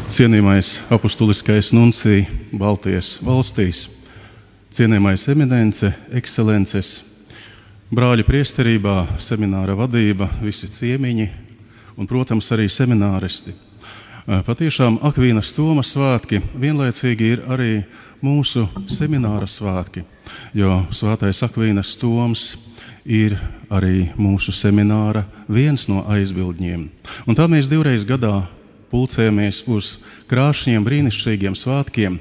Cienījamais apustuliskais nuncija Baltijas valstīs, cienījamais eminence, ekscelences, brāļi priesterībā, semināra vadība, visi ciemiņi un, protams, arī semināristi. Patiešām Akvīnas Toma svētki vienlaicīgi ir arī mūsu semināra svētki, jo svētais Akvīnas Toms ir arī mūsu semināra viens no aizbildņiem. Un tā mēs 2 reizes gadā pulcējamies uz krāšņiem, brīnišķīgiem svētkiem,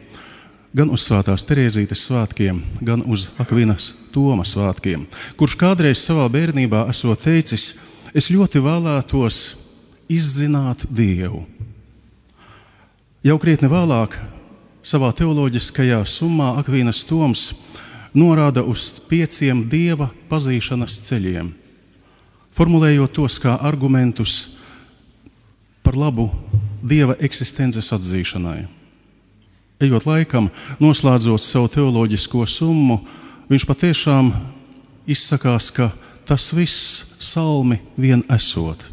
gan uz Svētās Terēzītes svētkiem, gan uz Akvīnas Toma svētkiem, kurš kādreiz savā bērnībā esot teicis: es ļoti vēlētos izzināt Dievu. Jau krietni vēlāk savā teoloģiskajā summā Akvīnas Toms norāda uz 5 Dieva pazīšanas ceļiem, formulējot tos kā argumentus par labu Dieva eksistences atzīšanai. Ejot laikam, noslēdzot savu teoloģisko summu, viņš patiešām izsakās, ka tas viss salmi vien esot,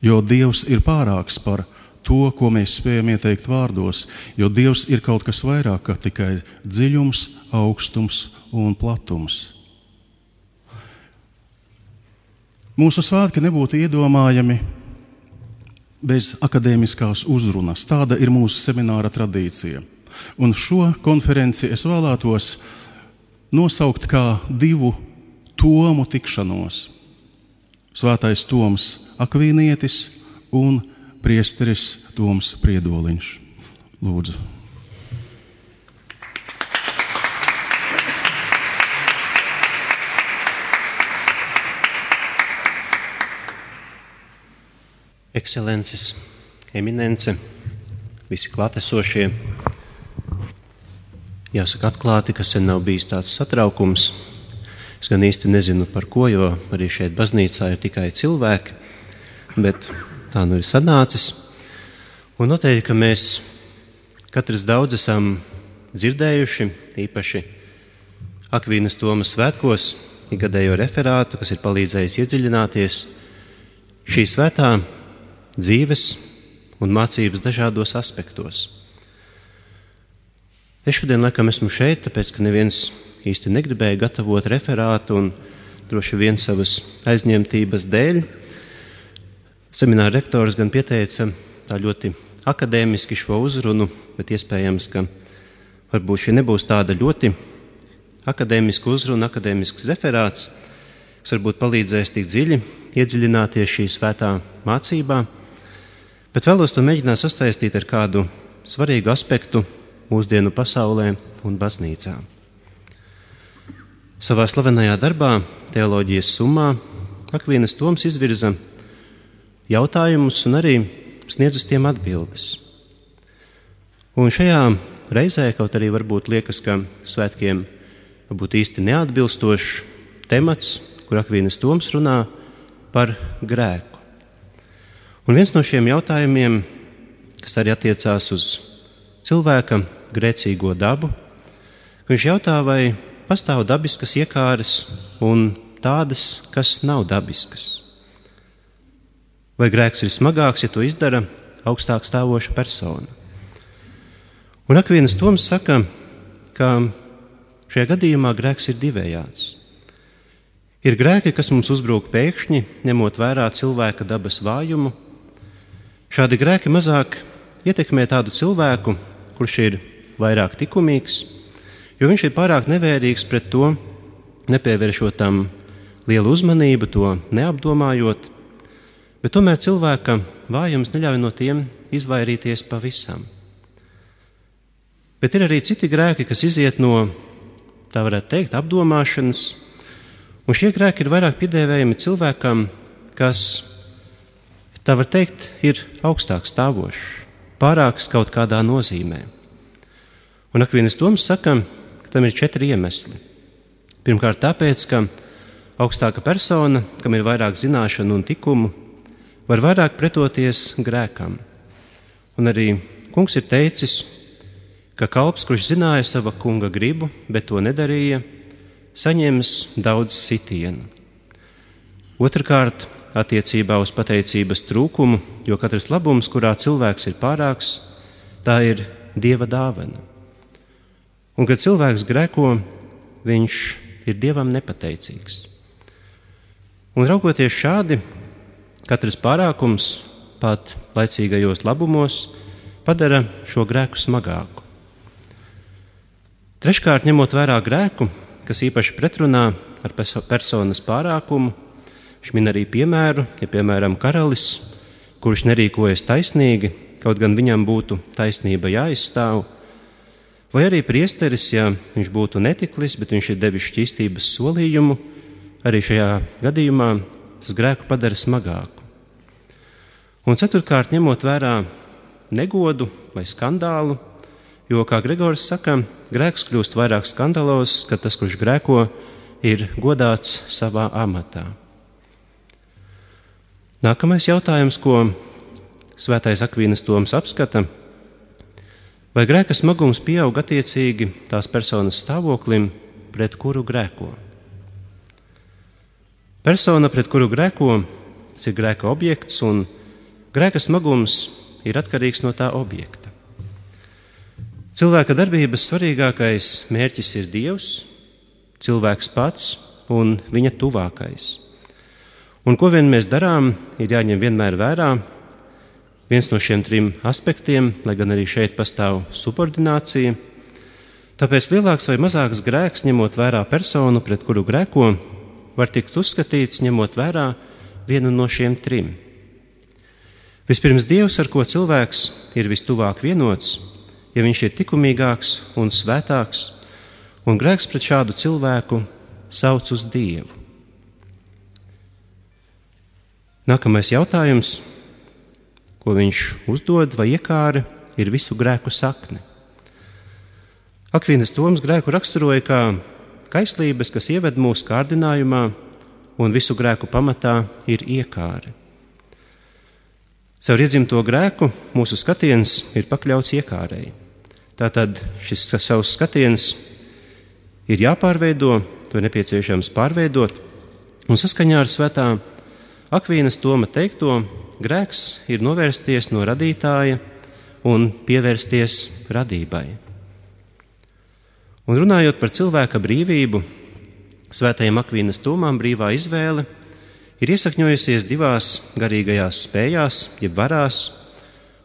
jo Dievs ir pārāks par to, ko mēs spējam ieteikt vārdos, jo Dievs ir kaut kas vairāk kā tikai dziļums, augstums un platums. Mūsu svētki nebūtu iedomājami bez akadēmiskās uzrunas. Tāda ir mūsu semināra tradīcija. Un šo konferenci es vēlētos nosaukt kā 2 tomu tikšanos. Svētais Toms Akvīnietis un priesteris Toms Priedoliņš. Lūdzu. Ekscelences, eminence, visi klātesošie. Jāsaka atklāti, ka sen nav bijis tāds satraukums. Es gan īsti nezinu par ko, jo arī šeit baznīcā ir tikai cilvēki, bet tā nu ir sanācis. Un noteikti, ka mēs katrs daudz esam dzirdējuši, īpaši Akvīnas Toma svētkos, ikgadējo referātu, kas ir palīdzējis iedziļināties šī svētā dzīves un mācības dažādos aspektos. Es šodien laikam esmu šeit, tāpēc, ka neviens īsti negribēja gatavot referātu un droši vien savas aizņemtības dēļ. Semināra rektors gan pieteica tā ļoti akadēmiski šo uzrunu, bet iespējams, ka varbūt šī nebūs tāda ļoti akadēmiska uzruna, akadēmisks referāts, kas varbūt palīdzēs tik dziļi iedziļināties šī svētā mācībā, bet vēlos to mēģināt sastaistīt ar kādu svarīgu aspektu mūsdienu pasaulē un baznīcā. Savā slavenajā darbā, teoloģijas summā, Akvīnas Toms izvirza jautājumus un arī sniedz uz tiem atbildes. Un šajā reizē, kaut arī varbūt liekas, ka svētkiem varbūt īsti neatbilstošs temats, kur Akvīnas Toms runā par grēku. Un viens no šiem jautājumiem, kas arī attiecās uz cilvēka grēcīgo dabu, viņš jautā, vai pastāv dabiskas iekāres un tādas, kas nav dabiskas. Vai grēks ir smagāks, ja to izdara augstāk stāvoša persona? Un Akvīnas Toms saka, ka šajā gadījumā grēks ir divējāds. Ir grēki, kas mums uzbrūk pēkšņi, ņemot vērā cilvēka dabas vājumu. Šādi grēki mazāk ietekmē tādu cilvēku, kurš ir vairāk likumīgs, jo viņš ir pārāk nevērīgs pret to, nepievēršot tam lielu uzmanību, to neapdomājot, bet tomēr cilvēka vājums neļauj no tiem izvairīties pavisam. Bet ir arī citi grēki, kas iziet no, tā varētu teikt, apdomāšanas, un šie grēki ir vairāk piedēvējami cilvēkam, kas, tā var teikt, ir augstāk stāvošs, pārāks kaut kādā nozīmē. Un Akvīnas Toms saka, ka tam ir 4 iemesli. Pirmkārt tāpēc, ka augstāka persona, kam ir vairāk zināšanu un tikumu, var vairāk pretoties grēkam. Un arī kungs ir teicis, ka kalps, kurš zināja sava kunga gribu, bet to nedarīja, saņems daudz sitienu. Otrkārt, attiecībā uz pateicības trūkumu, jo katrs labums, kurā cilvēks ir pārāks, tā ir Dieva dāvana. Un, kad cilvēks grēko, viņš ir Dievam nepateicīgs. Un raugoties šādi, katrs pārākums, pat laicīgajos labumos, padara šo grēku smagāku. Treškārt, ņemot vērā grēku, kas īpaši pretrunā ar personas pārākumu, viņš min arī piemēru, ja piemēram karalis, kurš nerīkojas taisnīgi, kaut gan viņam būtu taisnība jāizstāv, vai arī priesteris, ja viņš būtu netiklis, bet viņš ir devis šķīstības solījumu, arī šajā gadījumā tas grēku padara smagāku. Un ceturtkārt, ņemot vērā negodu vai skandālu, jo, kā Gregors saka, grēks kļūst vairāk skandalozs, kad tas, kurš grēko, ir godāts savā amatā. Nākamais jautājums, ko Svētais Akvīnas Toms apskata, vai grēka smagums pieaug attiecīgi tās personas stāvoklim, pret kuru grēko. Persona, pret kuru grēko, tas ir grēka objekts, un grēka smagums ir atkarīgs no tā objekta. Cilvēka darbības svarīgākais mērķis ir Dievs, cilvēks pats un viņa tuvākais. Un ko vien mēs darām, ir jāņem vienmēr vērā viens no šiem trim aspektiem, lai gan arī šeit pastāv subordinācija. Tāpēc lielāks vai mazāks grēks, ņemot vērā personu, pret kuru grēko, var tikt uzskatīts, ņemot vērā vienu no šiem trim. Vispirms Dievs, ar ko cilvēks ir vistuvāk vienots, ja viņš ir likumīgāks un svētāks, un grēks pret šādu cilvēku sauc uz Dievu. Nākamais jautājums, ko viņš uzdod vai iekāra, ir visu grēku sakne. Akvīnas Toms grēku raksturoja kā kaislības, kas ieved mūsu kārdinājumā, un visu grēku pamatā ir iekāre. Caur iedzimto grēku mūsu skatiens ir pakļauts iekārei. Tātad šis savs skatiens ir jāpārveido, to ir nepieciešams pārveidot, un saskaņā ar Svētā Akvīnas Toma teikto, grēks ir novērsties no radītāja un pievērsties radībai. Un runājot par cilvēka brīvību, Svētajam Akvīnas Tomam brīvā izvēle ir iesakņojusies divās garīgajās spējās, jeb varās,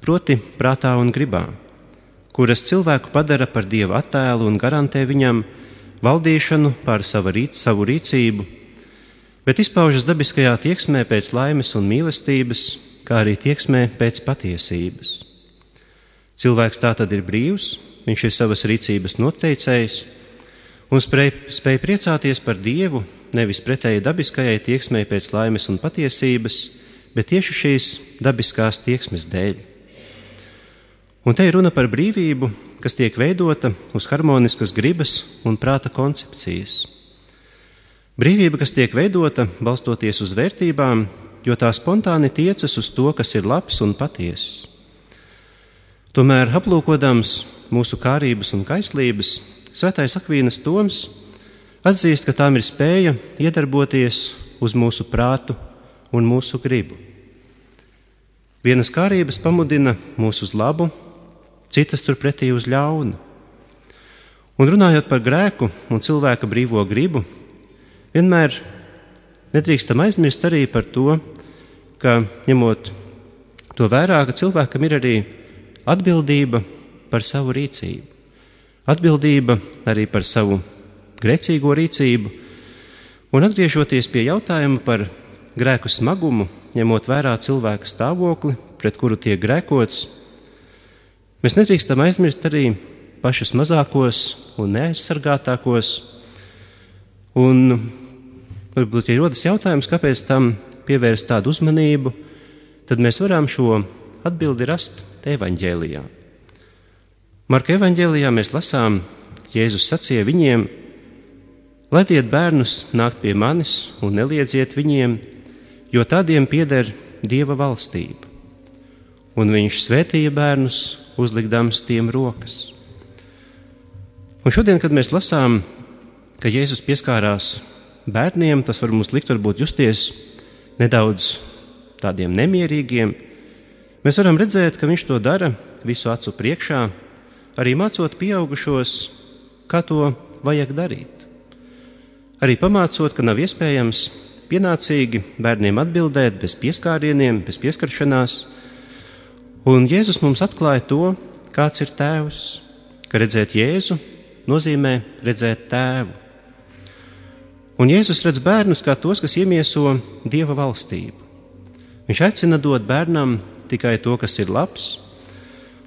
proti prātā un gribā, kuras cilvēku padara par Dieva attēlu un garantē viņam valdīšanu pār savu rīcību, bet izpaužas dabiskajā tieksmē pēc laimes un mīlestības, kā arī tieksmē pēc patiesības. Cilvēks tātad ir brīvs, viņš ir savas rīcības noteicējs un spēj priecāties par Dievu, nevis pretēji dabiskajai tieksmei pēc laimes un patiesības, bet tieši šīs dabiskās tieksmes dēļ. Un te ir runa par brīvību, kas tiek veidota uz harmoniskas gribas un prāta koncepcijas. Brīvība, kas tiek veidota balstoties uz vērtībām, jo tā spontāni tiecas uz to, kas ir labs un patiess. Tomēr, aplūkodams mūsu kārības un kaislības, Svētais Akvīnas Toms atzīst, ka tām ir spēja iedarboties uz mūsu prātu un mūsu gribu. Vienas kārības pamudina mūs uz labu, citas turpretī uz ļaunu. Un runājot par grēku un cilvēka brīvo gribu, vienmēr nedrīkstam aizmirst arī par to, ka ņemot to vērā, ka cilvēkam ir arī atbildība par savu rīcību. Atbildība arī par savu grēcīgo rīcību. Un atgriežoties pie jautājuma par grēku smagumu, ņemot vērā cilvēka stāvokli, pret kuru tiek grēkots, mēs nedrīkstam aizmirst arī pašus mazākos un neaizsargātākos. Un varbūt, ja rodas jautājums, kāpēc tam pievērst tādu uzmanību, tad mēs varam šo atbildi rast evaņģēlijā. Marka evaņģēlijā mēs lasām, Jēzus sacīja viņiem: laidiet bērnus nākt pie manis un neliedziet viņiem, jo tādiem pieder Dieva valstība. Un viņš svētīja bērnus, uzlikdams tiem rokas. Un šodien, kad mēs lasām, ka Jēzus pieskārās bērniem, tas var mums likt varbūt justies nedaudz tādiem nemierīgiem, mēs varam redzēt, ka viņš to dara visu acu priekšā, arī mācot pieaugušos, kā to vajag darīt. Arī pamācot, ka nav iespējams pienācīgi bērniem atbildēt bez pieskārieniem, bez pieskaršanās. Un Jēzus mums atklāja to, kāds ir tēvs, ka redzēt Jēzu nozīmē redzēt tēvu. Un Jēzus redz bērnus kā tos, kas iemieso Dieva valstību. Viņš aicina dot bērnam tikai to, kas ir labs,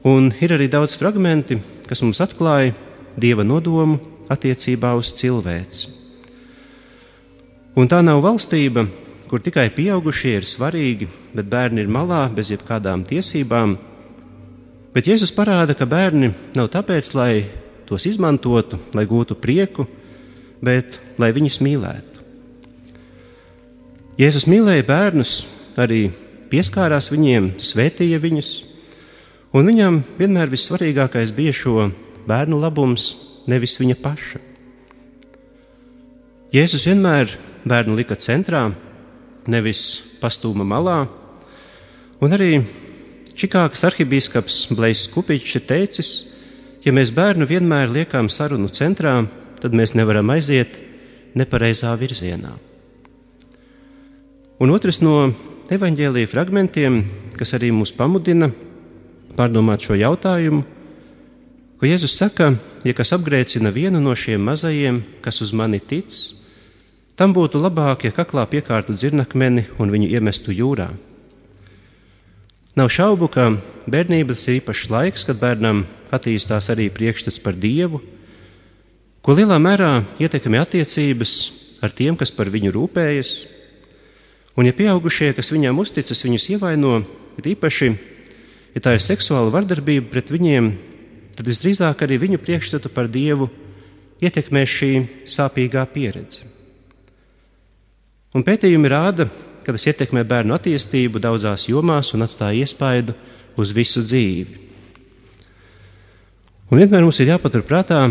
un ir arī daudz fragmenti, kas mums atklāja Dieva nodomu attiecībā uz cilvēci. Un tā nav valstība, kur tikai pieaugušie ir svarīgi, bet bērni ir malā bez jebkādām tiesībām. Bet Jēzus parāda, ka bērni nav tāpēc, lai tos izmantotu, lai gūtu prieku, bet lai viņus mīlētu. Jēzus mīlēja bērnus, arī pieskārās viņiem, svētīja viņus, un viņam vienmēr vissvarīgākais bija šo bērnu labums, nevis viņa paša. Jēzus vienmēr bērnu lika centrā, nevis pastūma malā, un arī Čikāgas arhibīskaps Blejs Kupičs ir teicis, ja mēs bērnu vienmēr liekam sarunu centrā, tad mēs nevaram aiziet nepareizā virzienā. Un otrs no evaņģēlija fragmentiem, kas arī mūs pamudina pārdomāt šo jautājumu, ko Jēzus saka, ja kas apgrēcina vienu no šiem mazajiem, kas uz mani tic, tam būtu labāk, ja kaklā piekārtu dzirnakmeni un viņu iemestu jūrā. Nav šaubu, ka bērnības ir īpašs laiks, kad bērnam attīstās arī priekšstats par Dievu, ko lielā mērā ietekmē attiecības ar tiem, kas par viņu rūpējas. Un ja pieaugušie, kas viņam uzticas, viņus ievaino, ir īpaši, ja tā ir seksuāla vardarbība pret viņiem, tad visdrīzāk arī viņu priekšstatu par Dievu ietekmē šī sāpīgā pieredze. Un pētījumi rāda, ka tas ietekmē bērnu attīstību daudzās jomās un atstāja iespaidu uz visu dzīvi. Un vienmēr mums ir jāpatur prātā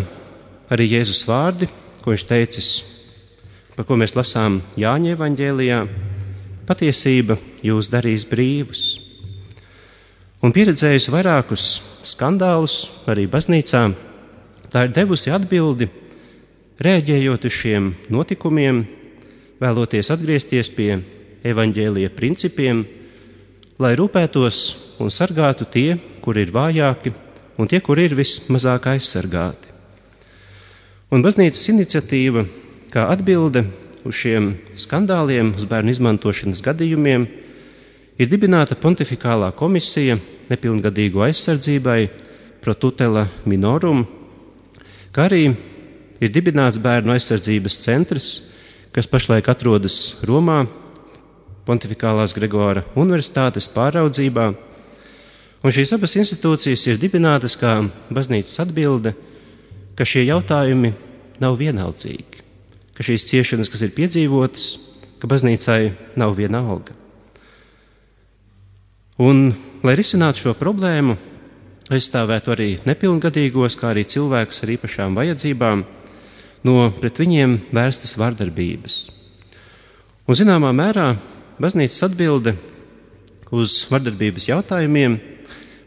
arī Jēzus vārdi, ko viņš teicis, par ko mēs lasām Jāņa evaņģēlijā: patiesība jūs darīs brīvus. Un pieredzējusi vairākus skandālus arī baznīcā, tā ir devusi atbildi, reaģējot uz šiem notikumiem, vēloties atgriezties pie evaņģēlija principiem, lai rūpētos un sargātu tie, kuri ir vājāki, un tie, kuri ir vismazāk aizsargāti. Un baznīcas iniciatīva, kā atbilde uz šiem skandāliem, uz bērnu izmantošanas gadījumiem, ir dibināta pontifikālā komisija nepilngadīgo aizsardzībai pro tutela minorum, kā arī ir dibināts bērnu aizsardzības centrs, kas pašlaik atrodas Romā, Pontifikālās Gregora Universitātes pāraudzībā. Un šīs abas institūcijas ir dibinātas kā baznīcas atbilde, ka šie jautājumi nav vienaldzīgi, ka šīs ciešanas, kas ir piedzīvotas, ka baznīcai nav viena alga. Un, lai risinātu šo problēmu, aizstāvētu arī nepilngadīgos, kā arī cilvēkus ar īpašām vajadzībām, no pret viņiem vērstas vardarbības. Un zināmā mērā baznīcas atbilde uz vardarbības jautājumiem,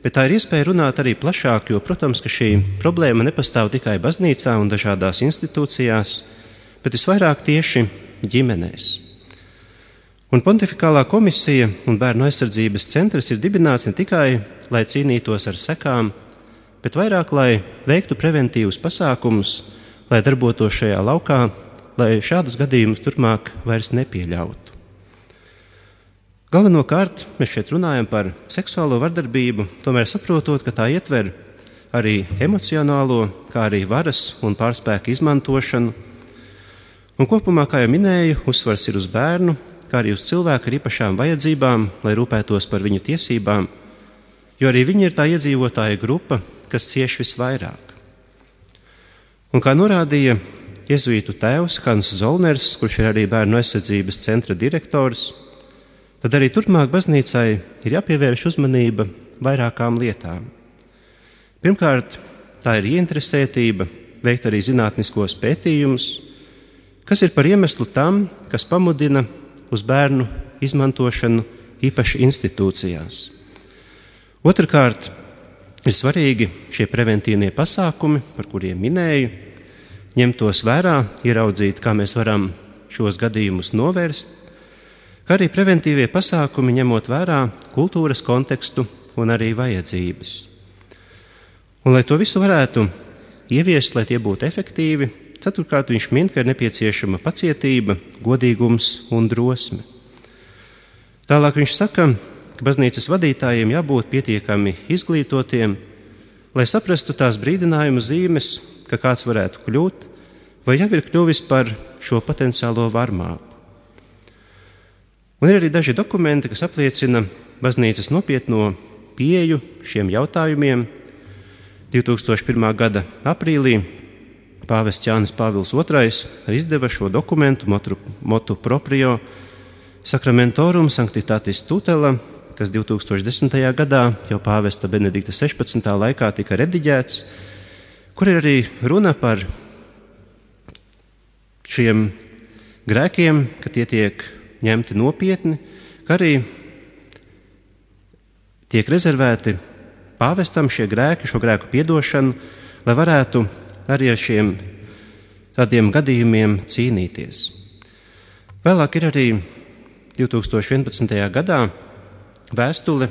bet tā ir iespēja runāt arī plašāk, jo, protams, ka šī problēma nepastāv tikai baznīcā un dažādās institūcijās, bet visvairāk tieši ģimenēs. Un Pontifikālā komisija un bērnu aizsardzības centrs ir dibināts ne tikai, lai cīnītos ar sekām, bet vairāk, lai veiktu preventīvus pasākumus, lai darbotos šajā laukā, lai šādus gadījumus turpmāk vairs nepieļautu. Galvenokārt mēs šeit runājam par seksuālo vardarbību, tomēr saprotot, ka tā ietver arī emocionālo, kā arī varas un pārspēka izmantošanu. Un kopumā, kā jau minēju, uzsvars ir uz bērnu, kā arī uz cilvēku ar īpašām vajadzībām, lai rūpētos par viņu tiesībām, jo arī viņi ir tā iedzīvotāja grupa, kas cieš visvairāk. Un kā norādīja jezuītu tēvs Hans Zolners, kurš ir arī bērnu aizsardzības centra direktors, tad arī turpmāk baznīcai ir jāpievērš uzmanība vairākām lietām. Pirmkārt, tā ir ieinteresētība veikt arī zinātniskos pētījumus, kas ir par iemeslu tam, kas pamudina uz bērnu izmantošanu īpaši institūcijās. Otrkārt, ir svarīgi šie preventīvie pasākumi, par kuriem minēju, ņemt tos vērā, ieraudzīt, kā mēs varam šos gadījumus novērst, kā arī preventīvie pasākumi ņemot vērā kultūras kontekstu un arī vajadzības. Un, lai to visu varētu ieviest, lai tie būtu efektīvi, ceturtkārt viņš min, ka ir nepieciešama pacietība, godīgums un drosme. Tālāk viņš saka, ka baznīcas vadītājiem jābūt pietiekami izglītotiem, lai saprastu tās brīdinājumu zīmes, ka kāds varētu kļūt, vai jau ir kļuvis par šo potenciālo varmāku. Un ir arī daži dokumenti, kas apliecina baznīcas nopietno pieeju šiem jautājumiem. 2001. gada aprīlī pāvests Jānis Pāvils II izdeva šo dokumentu motu proprio Sacramentorum Sanctitatis Tutela, kas 2010. gadā jau pāvesta Benedikta 16. laikā tika rediģēts, kur ir arī runa par šiem grēkiem, ka tie tiek ņemti nopietni, ka arī tiek rezervēti pāvestam šie grēki, šo grēku piedošanu, lai varētu arī ar šiem tādiem gadījumiem cīnīties. Vēlāk ir arī 2011. gadā vēstule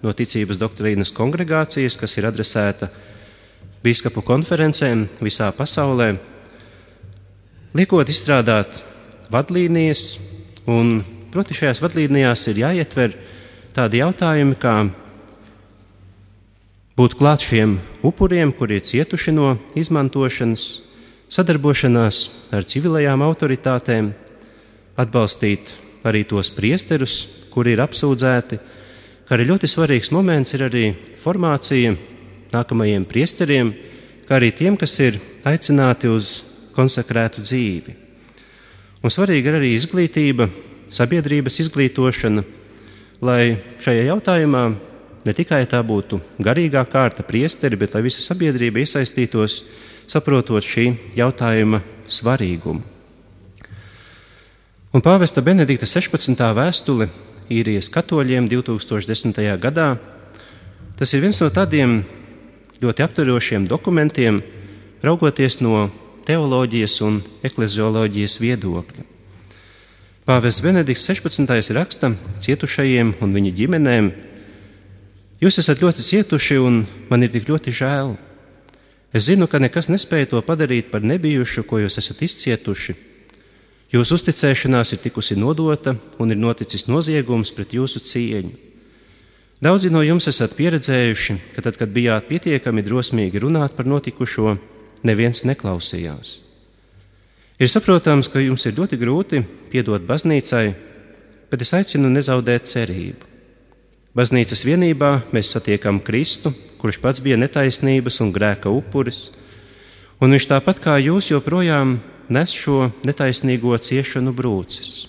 no Ticības doktrīnas kongregācijas, kas ir adresēta bīskapu konferencēm visā pasaulē, liekot izstrādāt vadlīnijas, un proti šajās vadlīnijās ir jāietver tādi jautājumi, kā būt klāt šiem upuriem, kuri ir cietuši no izmantošanas, sadarbošanās ar civilajām autoritātēm, atbalstīt arī tos priesterus, kuri ir apsūdzēti, kā arī ļoti svarīgs moments ir arī formācija nākamajiem priesteriem, kā arī tiem, kas ir aicināti uz konsekrētu dzīvi. Un svarīga ir arī izglītība, sabiedrības izglītošana, lai šajā jautājumā ne tikai tā būtu garīgā kārta priesteri, bet lai visa sabiedrība iesaistītos, saprotot šī jautājuma svarīgumu. Un pāvesta Benedikta 16. vēstule īrijas katoļiem 2010. gadā, tas ir viens no tādiem ļoti aptverošiem dokumentiem, raugoties no teoloģijas un eklezioloģijas viedokļa. Pāvests Benedikts 16. raksta cietušajiem un viņu ģimenēm: jūs esat ļoti cietuši un man ir tik ļoti žēl. Es zinu, ka nekas nespēja to padarīt par nebijušu, ko jūs esat izcietuši. Jūsu uzticēšanās ir tikusi nodota un ir noticis noziegums pret jūsu cieņu. Daudzi no jums esat pieredzējuši, ka tad, kad bijāt pietiekami drosmīgi runāt par notikušo, neviens neklausījās. Ir saprotams, ka jums ir ļoti grūti piedot baznīcai, bet es aicinu nezaudēt cerību. Baznīcas vienībā mēs satiekam Kristu, kurš pats bija netaisnības un grēka upuris, un viņš tāpat kā jūs joprojām nes šo netaisnīgo ciešanu brūces.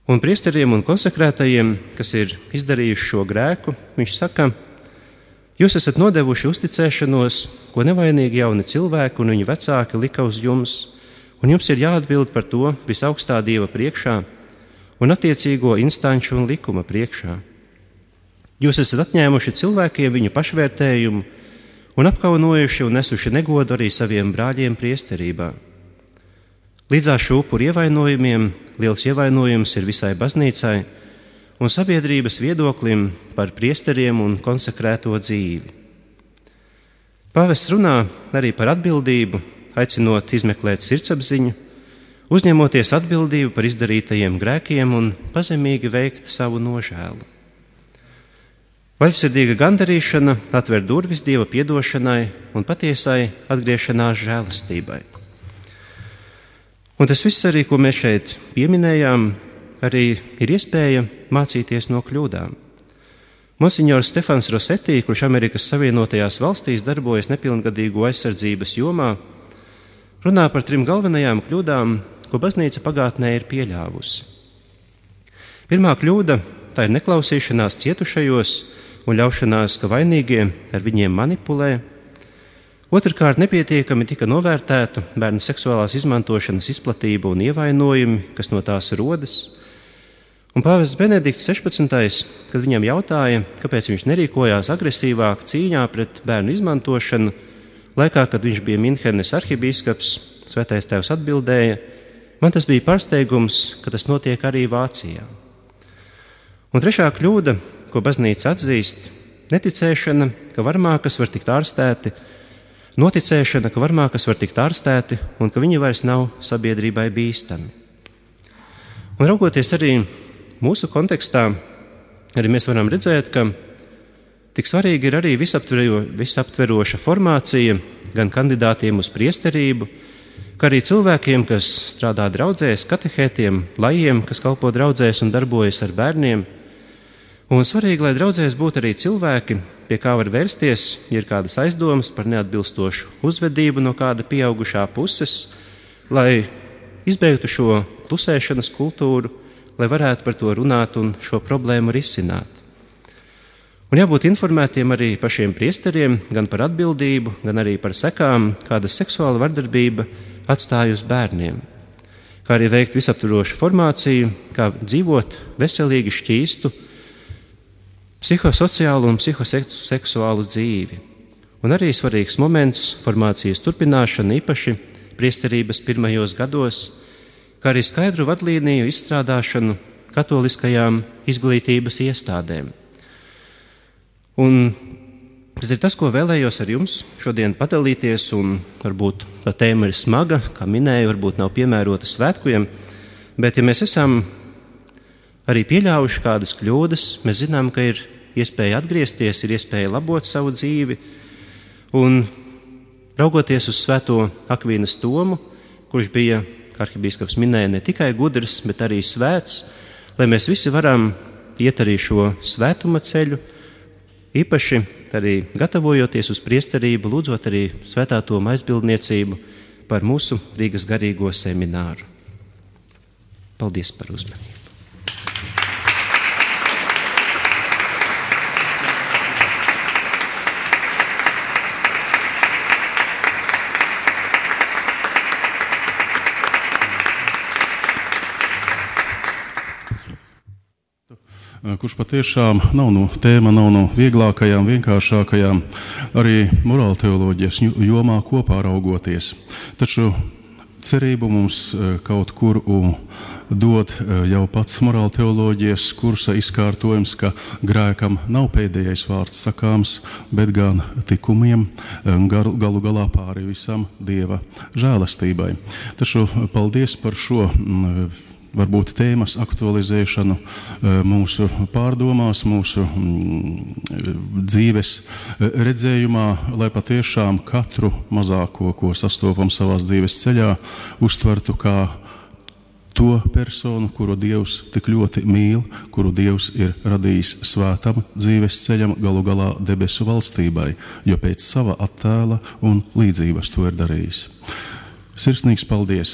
Un priesteriem un konsekrētajiem, kas ir izdarījuši šo grēku, viņš saka: jūs esat nodevuši uzticēšanos, ko nevainīgi jauni cilvēki un viņu vecāki lika uz jums, un jums ir jāatbild par to visaugstā Dieva priekšā un attiecīgo instanču un likuma priekšā. Jūs esat atņēmuši cilvēkiem viņu pašvērtējumu un apkaunojuši un nesuši negodu arī saviem brāļiem priesterībā. Līdzās šo upuru ievainojumiem liels ievainojums ir visai baznīcai un sabiedrības viedoklim par priesteriem un konsekrēto dzīvi. Pāvests runā arī par atbildību, aicinot izmeklēt sirdsapziņu, uzņemoties atbildību par izdarītajiem grēkiem un pazemīgi veikt savu nožēlu. Vaļsirdīga gandarīšana atver durvis Dieva piedošanai un patiesai atgriešanās žēlastībai. Un tas viss arī, ko mēs šeit pieminējām, arī ir iespēja mācīties no kļūdām. Monsignors Stefans Rosetī, kurš Amerikas Savienotajās valstīs darbojas nepilngadīgo aizsardzības jomā, runā par 3 galvenajām kļūdām, ko baznīca pagātnē ir pieļāvusi. Pirmā kļūda – tā ir neklausīšanās cietušajos un ļaušanās, ka vainīgie ar viņiem manipulē. Otrkārt, nepietiekami tika novērtēta bērnu seksuālās izmantošanas izplatība un ievainojumi, kas no tās rodas. Un pāvests Benedikts 16. kad viņam jautāja, kāpēc viņš nerīkojās agresīvāk cīņā pret bērnu izmantošanu, laikā, kad viņš bija Minhenes arhibīskaps, Svētais Tēvs atbildēja: man tas bija pārsteigums, ka tas notiek arī Vācijā. Un trešā kļūda, ko baznīca atzīst, neticēšana, ka varmākas var tikt ārstēti, noticēšana, ka varmākas var tikt ārstēti un ka viņi vairs nav sabiedrībai bīstami. Un raugoties arī mūsu kontekstā, arī mēs varam redzēt, ka tik svarīgi ir arī visaptveroša formācija gan kandidātiem uz priesterību, kā arī cilvēkiem, kas strādā draudzēs, katehētiem, lajiem, kas kalpo draudzēs un darbojas ar bērniem. Un svarīgi, lai draudzēs būtu arī cilvēki, pie kā var vērsties, ja ir kādas aizdomas par neatbilstošu uzvedību no kāda pieaugušā puses, lai izbeigtu šo klusēšanas kultūru, lai varētu par to runāt un šo problēmu risināt. Un jābūt informētiem arī pašiem priesteriem gan par atbildību, gan arī par sekām, kāda seksuāla vardarbība atstāja uz bērniem, kā arī veikt visaptvarošu formāciju, kā dzīvot veselīgi šķīstu, psihosociālu un psihoseksuālu dzīvi. Un arī svarīgs moments formācijas turpināšana īpaši priesterības pirmajos gados, kā arī skaidru vadlīniju izstrādāšanu katoliskajām izglītības iestādēm. Un tas ir tas, ko vēlējos ar jums šodien padalīties, un varbūt tā tēma ir smaga, kā minēju, varbūt nav piemērota svētkiem, bet ja mēs esam arī pieļāvuši kādas kļūdas, mēs zinām, ka ir iespēja atgriezties, ir iespēja labot savu dzīvi, un raugoties uz svēto Akvīnas Tomu, kurš bija, kā arhibīskaps minēja, ne tikai gudrs, bet arī svēts, lai mēs visi varam iet arī šo svētuma ceļu, īpaši arī gatavojoties uz priesterību, lūdzot arī Svētā Toma aizbildniecību par mūsu Rīgas garīgo semināru. Paldies par uzmanību. Kurš patiešām tēma nav no vieglākajām, vienkāršākajām, arī morāla teoloģijas jomā kopā raugoties. Taču cerību mums kaut kur dod jau pats morāla teoloģijas kursa izkārtojums, ka grēkam nav pēdējais vārds sakāms, bet gan tikumiem galu galā pāri visam Dieva žēlastībai. Taču paldies par šo varbūt tēmas aktualizēšanu mūsu pārdomās, mūsu dzīves redzējumā, lai patiešām katru mazāko, ko sastopam savās dzīves ceļā, uztvertu kā to personu, kuru Dievs tik ļoti mīl, kuru Dievs ir radījis svētam dzīves ceļam, galu galā debesu valstībai, jo pēc sava attēla un līdzības to ir darījis. Sirsnīgs paldies!